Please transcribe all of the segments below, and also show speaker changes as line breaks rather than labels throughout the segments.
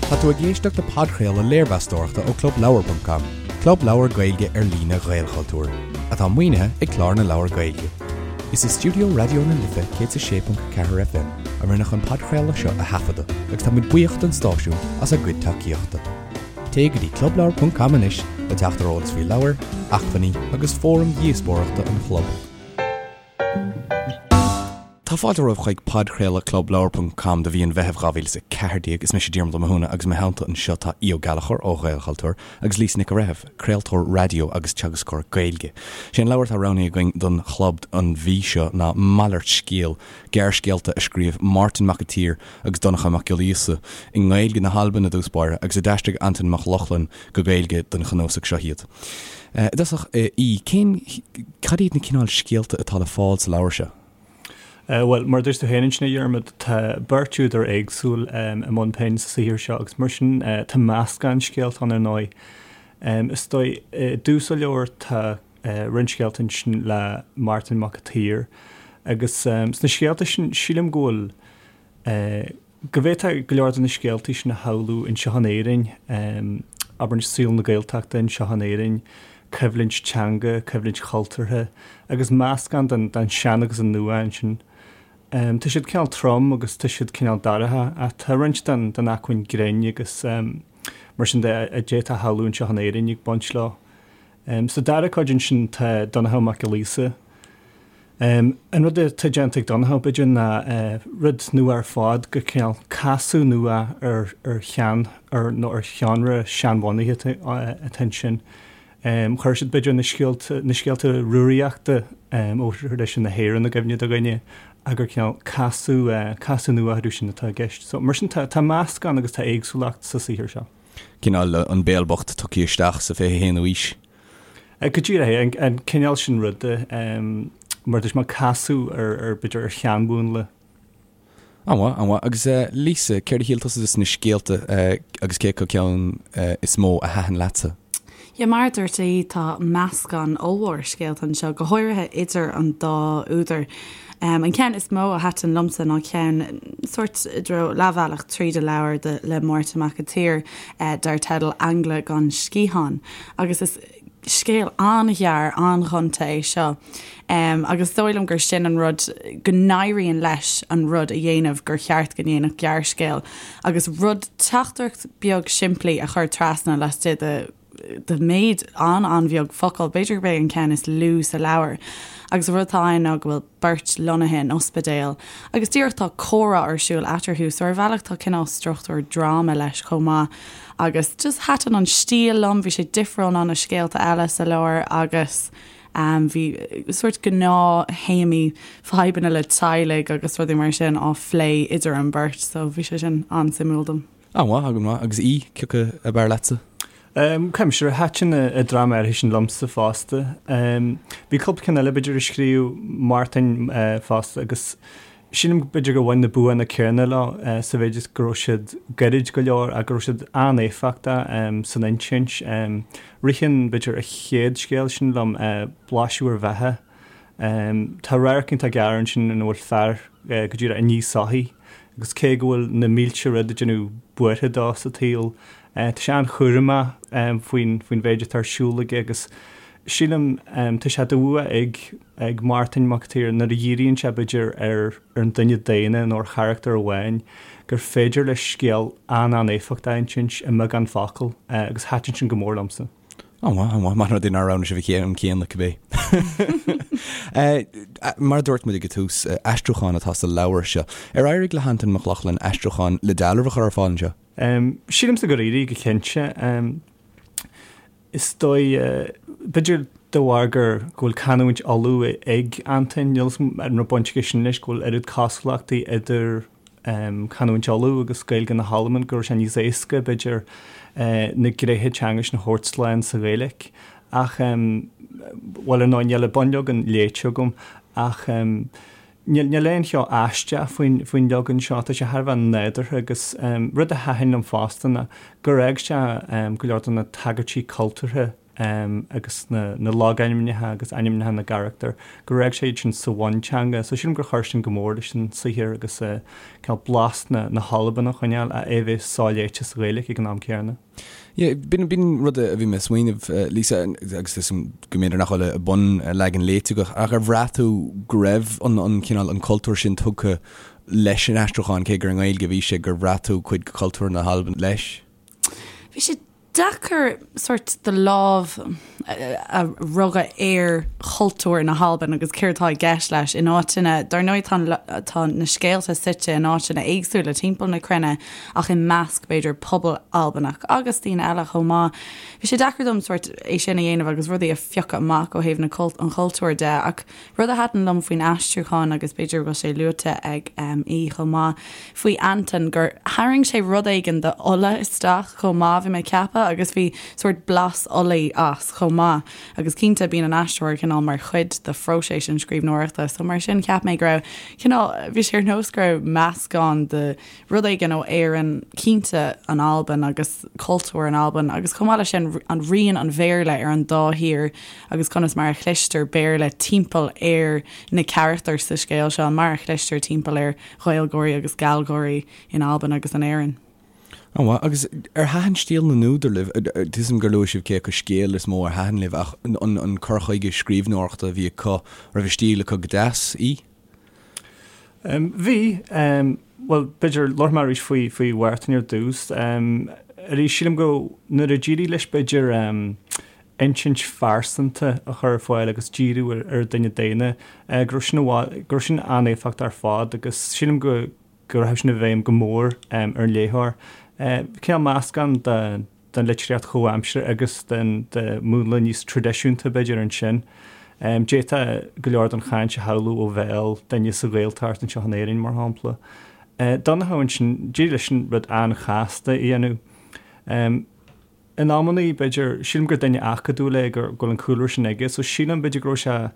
Tá tú ag éisteacht le podchraoladh léirmheastóireachta ó ClubLeabhar.com, club leabhar Gaeilge ar líne Ghaelchultúir, atá maoinithe ag Clár na Leabhar Gaeilge. Is i stiúideo Raidió na Life 106.4 FM a rinneadh an podchraoladh seo a thaifeadadh agus tá muid buíoch don stáisiún as a gcuid tacaíochta. Téigh go dtí clubleabhar.com anois le teacht ar eolas faoi leabhair, acmhainní agus fóraim dhíospóireachta an chlub. Tá fáilte romhaibh chuig podchraoladh clubleabhar.com do mhí an Mheithimh 2014. Is mise Diarmuid Ó Mathúna agus i mo theannta anseo tá Aodh Ó Gallchóir ó Ghaelchultúr agus Lisa Nic an Bhreithimh, craoltóir raidió agus teagascóir Gaeilge. Sé an leabhar atá roghnaithe againn don chlub an mhí seo ná Malairt Scéil, gearrscéalta a scríobh Máirtín Mac an tSaoir agus Donnchadh Mac Giolla Íosa i nGaeilge na hAlban i dtús báire agus a d'aistrigh Antain Mac Lochlainn go Gaeilge don chnuasach seo iad. I dtosach, a Aoidh, cén, cad iad na cineál scéalta atá le fáil sa leabhar seo?
Bhuel, mar a dúirt tú féin ansin, a Dhiarmaid, tá beirt údar éagsúil i mbun pinn sa saothar seo agus mar sin tá meascán scéalta ann ar ndóigh. Is dóigh, i dtús an leabhair tá roinnt scéalta ansin le Màrtainn Mac a' tSaoir agus sna scéalta sin sílim go bhfuil, go bhféadfá go leor de na scéaltaí sin a shamhlú anseo in Éirinn, abair saol na Gaeltachta anseo in Éirinn, coimhlint teanga, coimhlint chultúrtha agus meascán den den sean agus an nua ansin. Tá siad cineál trom agus tá siad cineál dorcha ach tá roinnt den den acmhainn grinn agus mar sin de a d'fhéadfá a shamhlú anseo in Éirinn ag baint leo. Sa dara cuid ansin tá Donnchadh Mac Giolla Íosa. An rud atá déanta ag Donnchadh, b'fhéidir, ná rud nua ar fad, gur cineál casadh nua ar ar shean, ar nó ar sheánra seanbhunaithe atá ansin. Chuir siad, b'fhéidir, na scéalta, na scéalta Rúraíochta ó thraidisiún na hÉireann i gcuimhne do dhuine ach gur cineál casadh, casadh nua orthu sin atá i gceist. So, mar sin, tá, tá meascán agus tá éagsúlacht sa saothar seo.
Cineál An Béal Bocht tugtha isteach sa 21ú aois.
Go díreach é, an cineál sin ruda, mar dúirt mé, casadh ar, b'fhéidir, ar sheanmhúnla.
An-mhaith, an-mhaith. Agus Lisa, céard a shíl tusa de na scéalta agus cé acu ceann is mó a thaitin leatsa?
Yeah, mar a dúirt Aodh, tá meascán ollmhór scéalta anseo, go háirithe idir an dá údar. An ceann is mó a thaitin liomsa ná ceann sórt i dtreo leathbhealach tríd an leabhar de le Máirtín Mac an tSaoir dar teideal Aingle gan Sciathán agus is scéal an-ghearr, an-ghonta é seo agus is dóigh liom gur sin an rud go n-éiríonn leis an rud a dhéanamh gur cheart go ndéanfadh gearrscéal agus rud teachtaireacht beag simplí a chur trasna laistigh de de méid an-an-bheag focal, b'fhéidir gurb é an ceann is lú sa leabhar. Agus an rud atá ann ná go bhfuil beirt lonnaithe in ospidéal agus díreach tá comhrá ar siúl eatarthu so ar bhealach tá cineál struchtúr dráma leis chomh maith agus just thaitin an stíl liom, bhí sé difriúil ná na scéalta eile sa leabhar agus bhí sórt gnáth-théamaí fadhbanna le teaghlaigh agus rudaí mar sin á phlé idir an bheirt so bhí sé sin an-suimiúil dom.
An-mhaith, an-mhaith. Agus Aodh, cé acu ab fhearr leatsa?
Cuimse, thaitin an dráma áirithe sin liomsa fosta. Bhí cúpla ceann eile b'fhéidir a scríobh Màrtainn fosta agus sílim b'fhéidir gur bhain na buanna céanna leo sa mhéid is go raibh siad gairid go leor ach go raibh siad an-éifeachtach san insint. Ritheann b'fhéidir a chéad scéal sin liom, Blaiseadh ar Bheatha. Tá radharc iontach gearr ansin ina bhfuil fear go díreach ag ní soithí agus cé go bhfuil na mílte rud ag déanamh buartha dó sa tsaol, tá sé an-chúramach faoin faoin mhéid atá ar siúl aige agus sílim tá sé de bhua ag ag Màrtainn Mac an tSaoir nuair a dhíríonn sé b'fhéidir ar ar an duine daonna nó ar charachtar amháin gur féidir leis scéal an-an-éifeachtach a insint i mbeagán focal agus thaitin sin go mór liomsa.
An-mhaith, an-mhaith. Maith an rud é nár roghnaigh sibh an ceann céanna, cibé. Mar a dúirt muid ag an tús, aistriúchán atá sa leabhar seo. Ar éirigh le hAntain Mac Lochlainn aistriúchán le dealramh a chur ar fáil anseo?
Sílimse gur éirigh, go cinnte. Is dóigh, b'fhéidir de bharr gur, go bhfuil canúint Uladh ag Antain, níl 'fhios a'm an raibh baint aige sin leis, go bhfuil oiread cosúlachtaí idir canúint Uladh agus Gaeilge na hAlban go raibh sé níos éasca, b'fhéidir, na gnéithe teanga sin a thabhairt slán sa Ghaeilge. Ach, bhuel, ar ndóigh, níl an bunleagan léite agam, ach níl aon cheo aisteach faoin, faoin leagan seo, tá sé thar a bheith nádúrtha agus rud a thaitin liom fosta ná gur fhág sé go leor de na tagairtí cultúrtha. Agus na logainmneacha agus ainmneacha na gcarachtar, gur fhág sé iad sin sa bhunteanga. So sílim gur chuir sin go mór leis an saothar agus cineál blas na hAlban a choinneáil ach é a bheith soléite sa Ghaeilge ag an am céanna.
Yeah, b'in rud a bhí mé ag smaoineamh, Lisa, agus is go mb'fhéidir nach bhfuil an bunleagan léite agat, ach ar bhraith tú go raibh an cineál, an cultúr sin tugtha leis an aistriúchán, cé gur i nGaeilge a bhí sé, gur bhraith tú cuid de chultúr na hAlban leis?
Bhí sé deacair sórt do lámh a rugadh ar chultúr na hAlban agus céard atá i gceist leis in áiteanna, dar ndóigh tá tá na scéalta suite in áiteanna éagsúla timpeall na cruinne ach i measc b'fhéidir pobal Albanach agus daoine eile chomh maith. Bhí sé deacair dom sórt é sin a dhéanamh agus rudaí a phiocadh amach ó thaobh na an chultúir de ach Rud a thaitin liom faoin aistriúchán, agus b'fhéidir go bhfuil sé luaite ag Aodh chomh maith, faoi Antain, gur tharraing sé rud éigin de Ulaidh isteach chomh maith, bhí mé ag ceapadh, agus bhí sórt blas Ulaidh as chomh maith. Agus cinnte, bíonn an aistritheoir cineál mar chuid de phróiseas an scríbhneoireachta, so mar sin cheap mé go raibh cineál, bhí sé ar nós go raibh meascán de rud éigin ó Éirinn, cinnte an Albain agus cultúr an Albain agus chomh maith leis sin an rian an Bhéarla ar an dá thír agus conas mar a chloistear Béarla timpeall ar na carachtair sa scéal seo, mar a chloistear timpeall ar Ghaeilgeoirí agus Gallgeoirí in Albain agus in Éirinn.
An-mhaith. Agus ar thaitin stíl na n-údar libh? Tuigim gur luaigh sibh cé acu scéal is mó ar thaitin libh ach an cur chuige scríbhneoireachta a bhí acu, raibh a stíl acu go deas? Aodh?
Bhí. Bhuel, b'fhéidir, labharfaidh mé arís faoi, faoi Mhártan ar dtús. Arís, sílim go, nuair a d'éirigh leis, b'fhéidir, insint phearsanta a chur ar fáil agus díriú ar, ar dhuine daonna, go raibh sin i bhfad, go raibh sin an-éifeachtach ar fad agus sílim go, go rachaidh sin i bhfeidhm go mór ar an léitheoir. Cineál meascán de, den litríocht chomhaimseartha agus den de mhúnla níos traidisiúnta, b'fhéidir, ansin. D'fhéadfá go leor den chaint a shamhlú ó bhéal duine sa Ghaeltacht anseo in Éirinn, mar shampla. Donncha ansin, d'éirigh leis an rud an-chasta a dhéanamh. In amannaí, b'fhéidir, sílim gur duine acadúil é, go bhfuil an cúlra sin aige, so sílim, b'fhéidir, go raibh sé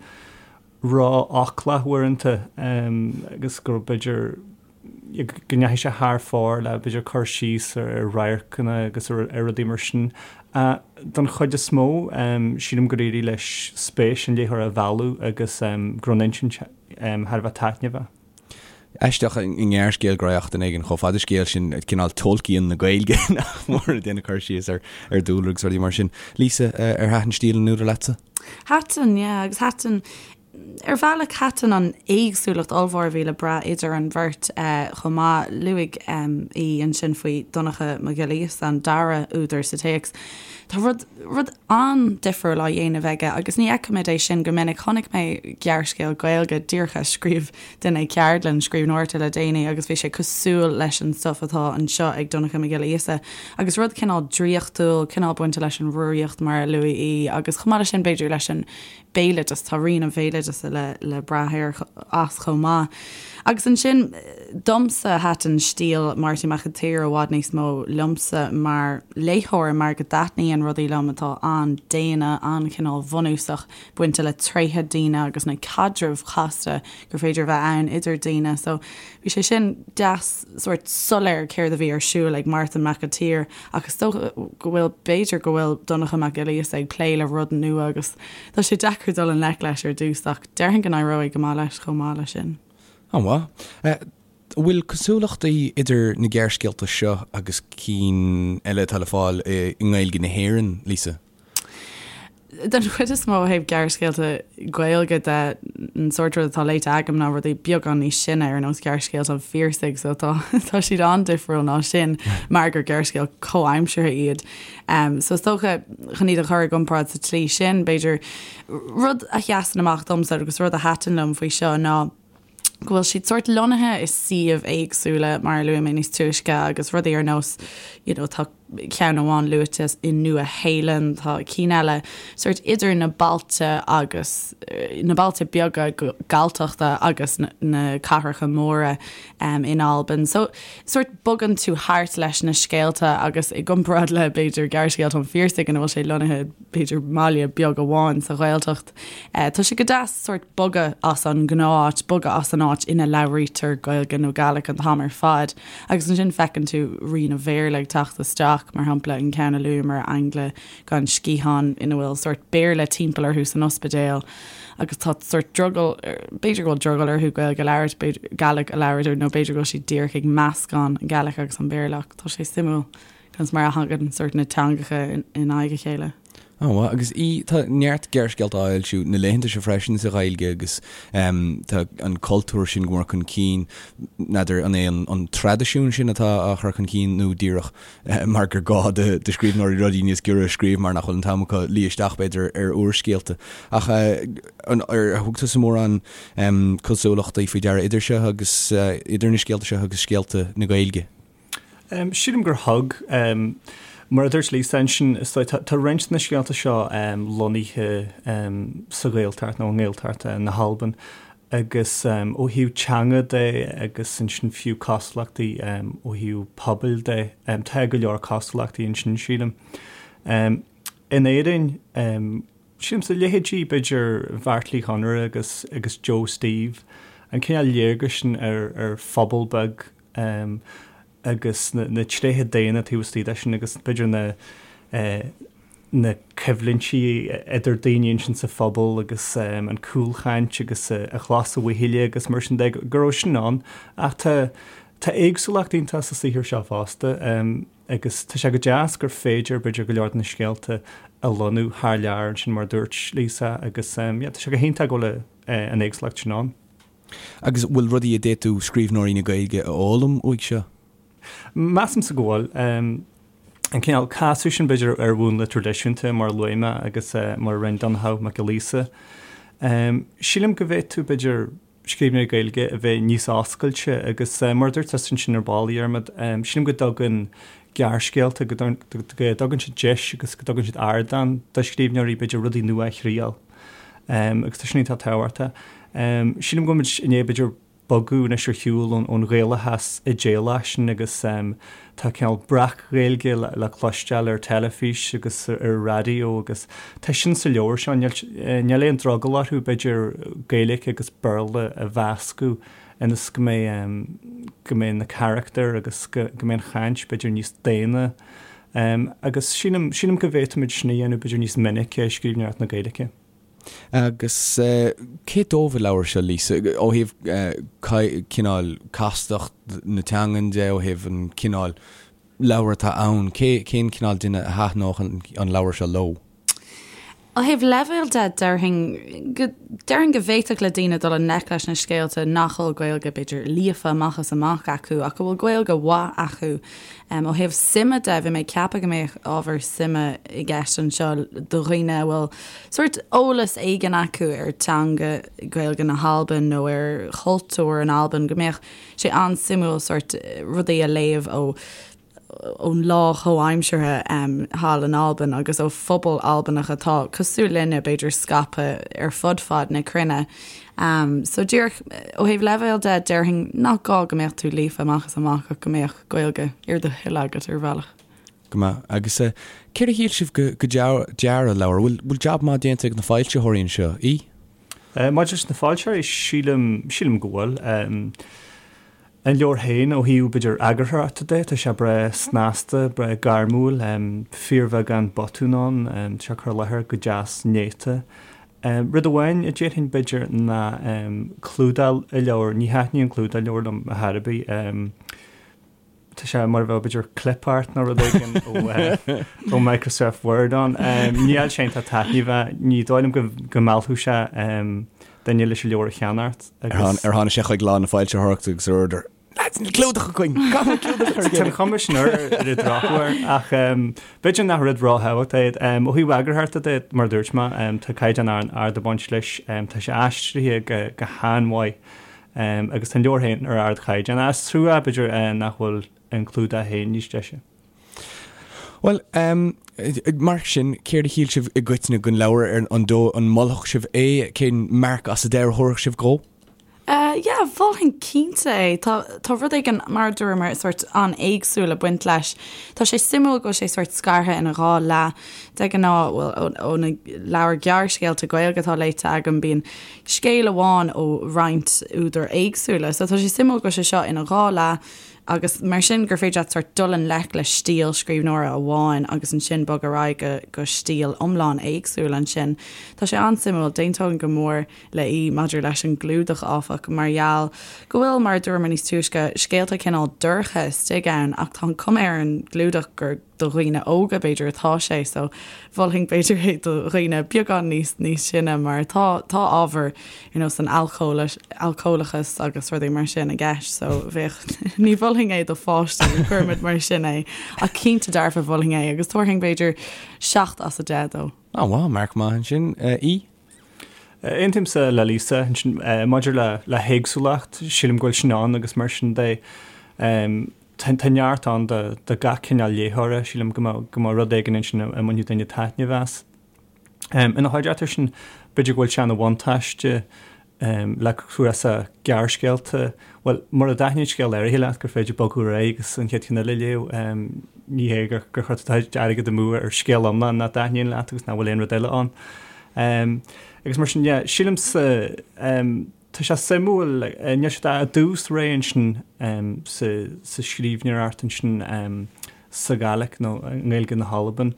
ró-fhoclach uaireanta agus go raibh, b'fhéidir, go ndeachaigh sé thar fóir le, b'fhéidir, cur síos ar radharcanna agus ar rudaí mar sin. Don chuid is mó, sílim gur éirigh leis spéis an léitheora a mhealladh agus go raibh an insint thar a bheith taitneamhach.
Aisteach i ngearrscéal go raibh duine éigin chomh fada scéal sin, cineál Tolkien na Gaeilge, nach mór, ag déanamh cur síos ar dúlra agus rudaí mar sin. Lisa, ar thaitin stíl an údair leatsa?
Thaitin, yeah, agus thaitin Ar bhealach, thaitin an éagsúlacht ollmhór a bhí le brath idir an bheirt chomh maith. Luaigh Aodh ansin faoi Dhonncha Mac Giolla Íosa, an dara údar sa téacs. Tá rud, rud an-difriúil á dhéanamh aige agus ní fheicimid é sin go minic. Chonaic mé gearrscéal Gaeilge díreach a scríobh duine ag ceardlann scríbhneoireachta le déanaí agus bhí sé cosúil leis an stuif atá anseo ag Donncha Mac Giolla Íosa agus rud cineál draíochtúil, cineál bainte leis an Rúraíocht mar a luaigh Aodh agus chomh maith leis sin b'fhéidir leis an béaloideas, tá rian an bhéaloideasa le le brath air as chomh maith. Agus ansin, domsa, thaitin stíl Máirtín Mac an tSaoir i bhfad níos mó liomsa mar léitheoir mar go dtaitníonn rudaí liom atá an-daonna, an-chineál bhunúsach, bainte le tréithe daoine agus na caidrimh chasta gur féidir a bheith ann idir daoine. So bhí sé sin deas, sórt soiléir céard a bhí ar siúl ag Mártan Mac an tSaoir ach is dócha go bhfuil, b'fhéidir go bhfuil Donncha Mac Giolla Íosa ag plé le rud nua agus tá sé deacair dul i ngleic leis ar dtús ach déarfainn go n-éireoidh go maith leis chomh maith leis sin.
An-mhaith. An bhfuil cosúlachtaí idir na gearrscéalta seo agus cinn eile atá le fáil i nGaeilge na hÉireann, Lisa?
Den chuid is mó ó thaobh gearrscéalta Gaeilge de, an sórt rud atá léite agam ná rudaí beagán níos sine ar nós gearrscéalta an Phiarsaigh so tá tá siad an-difriúil ná sin mar gur gearrscéal comhaimseartha iad. Um, so is dócha chun iad a chur i gcomparáid sa tslí sin, b'fhéidir rud a sheasann amach domsa agus rud a thaitin liom faoi seo ná go bhfuil siad sórt lonnaithe i suíomh éagsúla mar a luaigh mé níos túisce agus rudaí ar nós you know tá ceann amháin luaite i Nua Shéalainn, tá cinn eile sórt idir na bailte agus na bailte beaga Galltachta agus na cathracha móra um, in Albain. So sórt bogann tú thart leis na scéalta agus i gcomparáid le b'fhéidir gearrscéalta an Phiarsaigh ina bhfuil sé lonnaithe b'fhéidir mbaile beag amháin sa Ghaeltacht. Tá sé go deas sórt bogadh as an ngnáth-áit, bogadh as an áit ina labhraítear Gaeilge nó Gàidhlig an t-am ar fad, agus ansin feiceann tú rian an Bhéarla ag teacht isteach. Mac, mar shampla, an ceann a luamar, Ainle gan Sciathán, ina bhfuil sórt Béarla timpeall orthu san ospidéal agus tá sórt drogall, b'fhéidir go bhfuil drogall orthu Gaeilge a labhairt, b'fhéidir, Gàidhlig a labhairt nó b'fhéidir go bhfuil siad díreach ag meascán an Gàidhlig agus an Béarla ach tá sé suimiúil conas mar a thagann sórt na teangacha in aghaidh a chéile.
Ó, mhaith. Agus í, tá neart gearrscéalta á fhoilsiú na laethanta seo freisin sa Ghaeilge agus tá an cultúr sin go mór chun cinn. N'fheadar an é an traidisiún sin atá á chur chun cinn nó díreach mar gur gá do scríbhneoirí rudaí níos giorra a scríobh mar nach bhfuil an t-am acu luí isteach, b'fhéidir, ar úrscéalta. Ach ar thug tusa mórán cosúlachtaí faoi deara idir seo agus, idir na scéalta seo agus scéalta na Gaeilge?
Sílim gur thug. Mar a dúirt Lisa ansin, is dóigh, tá roinnt de na scéalta seo lonnaithe sa Ghaeltacht nó i nGaeltacht na hAlban agus ó thaobh teanga de agus ansin fiú cosúlachtaí ó thaobh pobail de, tá go leor cosúlachtaí ansin, sílim. In Éirinn, sílimse, leithéidí b'fhéidir Bheairtle Uí Chonaire agus agus Joe Steve, an cineál léargais sin ar ar phobal beag agus na tréithe daonna taobh istigh de sin agus b'fhéidir na na coimhlintí idir daoine ansin sa phobal agus an cúlchaint agus a chlos a bhuachaille agus mar sin de, go raibh sin ann. Ach tá tá éagsúlacht iontach sa saothar seo fosta agus tá sé go deas gur féidir b'fhéidir go leor de na scéalta a lonnú thar lear ansin mar a dúirt Lisa agus yeah tá sé go hiontach go bhfuil an éagsúlacht sin ann.
Agus bhfuil rudaí a d'fhéadfadh scríbhneoirí na Gaeilge a fhoghlaim uaidh seo?
Measaimse go bhfuil. An cineál casadh sin, b'fhéidir, ar mhúnla traidisiúnta, mar a luaigh mé, agus mar a rinne Donnchadh Mac Giolla Íosa. Sílim go bhféadfadh, b'fhéidir, scríbhneoirí Gaeilge a bheith níos oscailte agus, mar a dúirt tusa ansin ar ball, a Dhiarmaid, sílim go dtugann gearrscéalta, go dtugann siad deis agus go dtugann siad ardán do scríbhneoirí, b'fhéidir, rudaí nua a thriail. Agus tá sin iontach tábhachtach. Sílim go bhfuil muid i ndiaidh, b'fhéidir, bogadh anois ar shiúl ón Ghaelachas idéalach sin agus tá cineál breac-Ghaeilge le cloisteáil ar teilifís agus ar an raidió agus tá sin sa leabhar seo. Níl aon drogall orthu, b'fhéidir, Gaeilge agus Béarla a mheascadh ionas go mbeidh, go mbeidh na carachtair agus go mbeidh an chaint, b'fhéidir, níos daonna. Agus sílim, sílim go bhféadfaimid sin a dhéanamh, b'fhéidir, níos minice i scríbhneoireacht na Gaeilge.
Agus cé dóibh an leabhar seo, Lisa? Ó thaobh cineál castacht na teangan de, ó thaobh an cineál leabhar atá ann, cé, cén cineál duine a thaitneodh an leabhar seo leo?
Ó thaobh leibhéil de, déarfainn go, déarfainn go bhféadfadh le daoine dul i ngleic leis na scéalta nach bhfuil Gaeilge, b'fhéidir, líofa amach is amach acu ach go bhfuil Gaeilge mhaith acu. Ó thaobh suime de, bhí mé ag ceapadh go mbeadh ábhar suime i gceist anseo do dhaoine a bhfuil sórt eolas éigin acu ar teanga Gaeilge na hAlban nó ar chultúr in Albain, go mbeadh sé an-suimiúil sórt rudaí a léamh ó ón lá chomhaimseartha thall in Albain agus ó phobal Albanach atá cosúil linne, b'fhéidir, scaipthe ar fud fad na cruinne. So díreach ó thaobh leibhéil de, déarfainn nach gá go mbeadh tú líofa amach is amach ach go mbeadh Gaeilge ar do thoil agat ar bhealach.
Go maith. Agus céard a shíl sibh go dearadh an leabhair? Bhfuil bhfuil jab maith déanta ag na foilsitheoirí anseo? Í?
Maidir leis na foilsitheoirí, sílim, sílim go bhfuil. An leabhar féin, ó thaobh, b'fhéidir, eagarthóireachta de, tá sé breá snasta, breá gairmiúil, fíorbheagán botún ann, tá sé curtha i láthair go deas néata. Rud amháin a déarfainn, b'fhéidir, ná clúdach an leabhair, ní thaitníonn clúdach an leabhair liom ar chor ar bith. Tá sé mar a bheadh, b'fhéidir, clip art nó rud éigin ó Microsoft Word ann. Níl sé iontach taitneamhach, ní dóigh liom go meallfadh sé duine leis an leabhar a cheannacht
agus. Ar tháinig sé chuig lá na foilsitheoireachta agus ar order, Lads, níl clúdach againn! Caithfidh
muid clúdach a chur Tá an chuma sin air ar an drochuair ach b'fhéidir nach rud ró-thábhachtach é. Ó thaobh eagarthóireachta de, mar a dúirt mé, tá caighdeán ard ag baint leis, tá sé aistrithe go han-mhaith agus tá an leabhar féin ar ardchaighdeán. Is trua, b'fhéidir, nach bhfuil an clúdach féin níos deise.
Bhuel, mar sin, céard a shíl sibh i gcoitinne den leabhar, ar an dóigh, an molfadh sibh é? Cén marc as a deich a thabharfadh sibh dhó?
Yeah, mholfainn cinnte é. Tá, tá rud éigin, mar a dúramar, sórt an-éagsúil ag baint leis. Tá sé suimiúil go bhfuil sé sórt scartha ina dhá leath. De ghnáth, bhuel, ó na leabhair gearrscéalta Gaeilge atá léite agam, bíonn scéal amháin ó roinnt údair éagsúla. So tá sé suimiúil go bhfuil sé seo ina dhá leath. Agus mar sin gur féidir leat sórt dul i ngleic le stíl scríbhneora amháin agus ansin bog ar aghaidh go go stíl iomlán éagsúil ansin. Tá sé an-suimiúil. D'aontóinn go mór le Aodh maidir leis an gclúdach, áfach, mar gheall go bhfuil, mar a dúramar níos túisce, scéalta cineál dorcha istigh ann ach tá an cuma ar an gclúdach gur do dhaoine óga b'fhéidir atá sé so mholfainn b'fhéidir é do dhaoine beagán níos níos sine mar tá tá ábhar ar nós an alcólachas agus rudaí mar sin i gceist so bheadh ní mholfainn é do pháistí cuirfimid mar sin é ach cinnte dearfa mholfainn é agus tabharfainn b'fhéidir 7 as 10 dó.
Á wow, marc maith ansin. Aodh?
Aontaímse le Lisa ansin maidir le le héagsúlacht, sílim go bhfuil sin ann agus mar sin de Tá neart ann do gach cineál léitheora, sílim go mbeadh go mbeadh rud éigin ansin a mbainfeadh duine taitneamh as. Ina chuideachta sin, b'fhéidir go bhfuil sé ina bhuntáiste le cnuasach gearrscéalta, bhuel, mura dtaitníonn scéal áirithe leat gur féidir bogadh ar aghaidh agus an chéad cheann eile a léamh. Ní hé gur chuir tú do chuid airgid amú ar scéal iomlán nach dtaitníonn leat agus nach bhfuil aon rud eile ann. Agus mar sin, yeah, sílimse, Tá sé suimiúil, níl siad i dtús ré ansin sa scríbhneoireacht ansin sa Ghàidhlig nó i nGaeilge na hAlban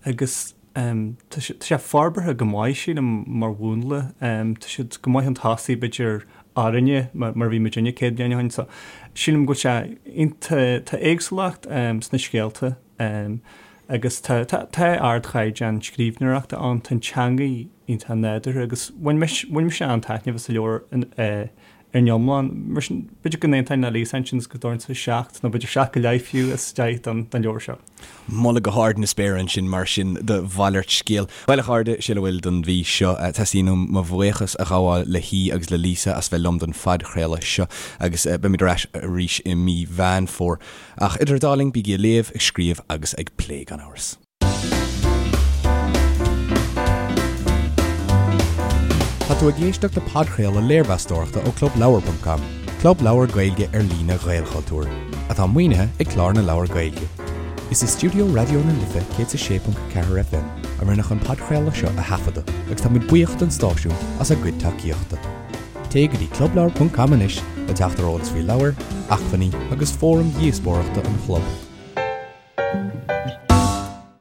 agus tá sé forbartha go maith, sílim, mar mhúnla. Tá siad go maith chun tosaigh, b'fhéidir, orainne mar a bhí muidinne 100 bliain ó shin. So sílim go bhfuil sé iontach, tá éagsúlacht sna scéalta agus tá ardchaighdeán scríbhneoireachta ann, tá an teangaidh iontach nádúrtha agus bhain mise bhain mise an-taitneamh as an leabhar ar an iomlán. Mar sin, b'fhéidir go n-aontóinn le Lisa ansin is go dtabharfainnse 7 nó b'fhéidir 7 go leith fiú as 10 don don leabhar seo.
Moladh go hard na spéire ansin mar sin do Mhalairt Scéil. Bhuel a chairde, sin a bhfuil don mhí seo. Teastaíonn uaim mo bhuíochas a ghabháil le hAodh agus le Lisa as bheith liom don phodchraoladh seo agus beimid ar ais arís i mí Mheán Fómhair. Ach idir an dá linn, bígí ag léamh, ag scríobh agus ag plé gan amhras. Tá tú ag éisteacht le podchraoladh léirmheastóireachta ó ClubLeabhar.com, club leabhar Gaeilge ar líne Ghaelchultúir, atá maoinithe ag Clár na Leabhar Gaeilge. Is i stiúideo Raidió na Life 106.4 FM a rinneadh an podchraoladh seo a thaifeadadh agus táimid buíoch don stáisiún as a gcuid tacaíochta. Téigh go dtí clubleabhar.com anois le teacht ar eolas faoi leabhair, acmhainní agus fóraim dhíospóireachta an chlub.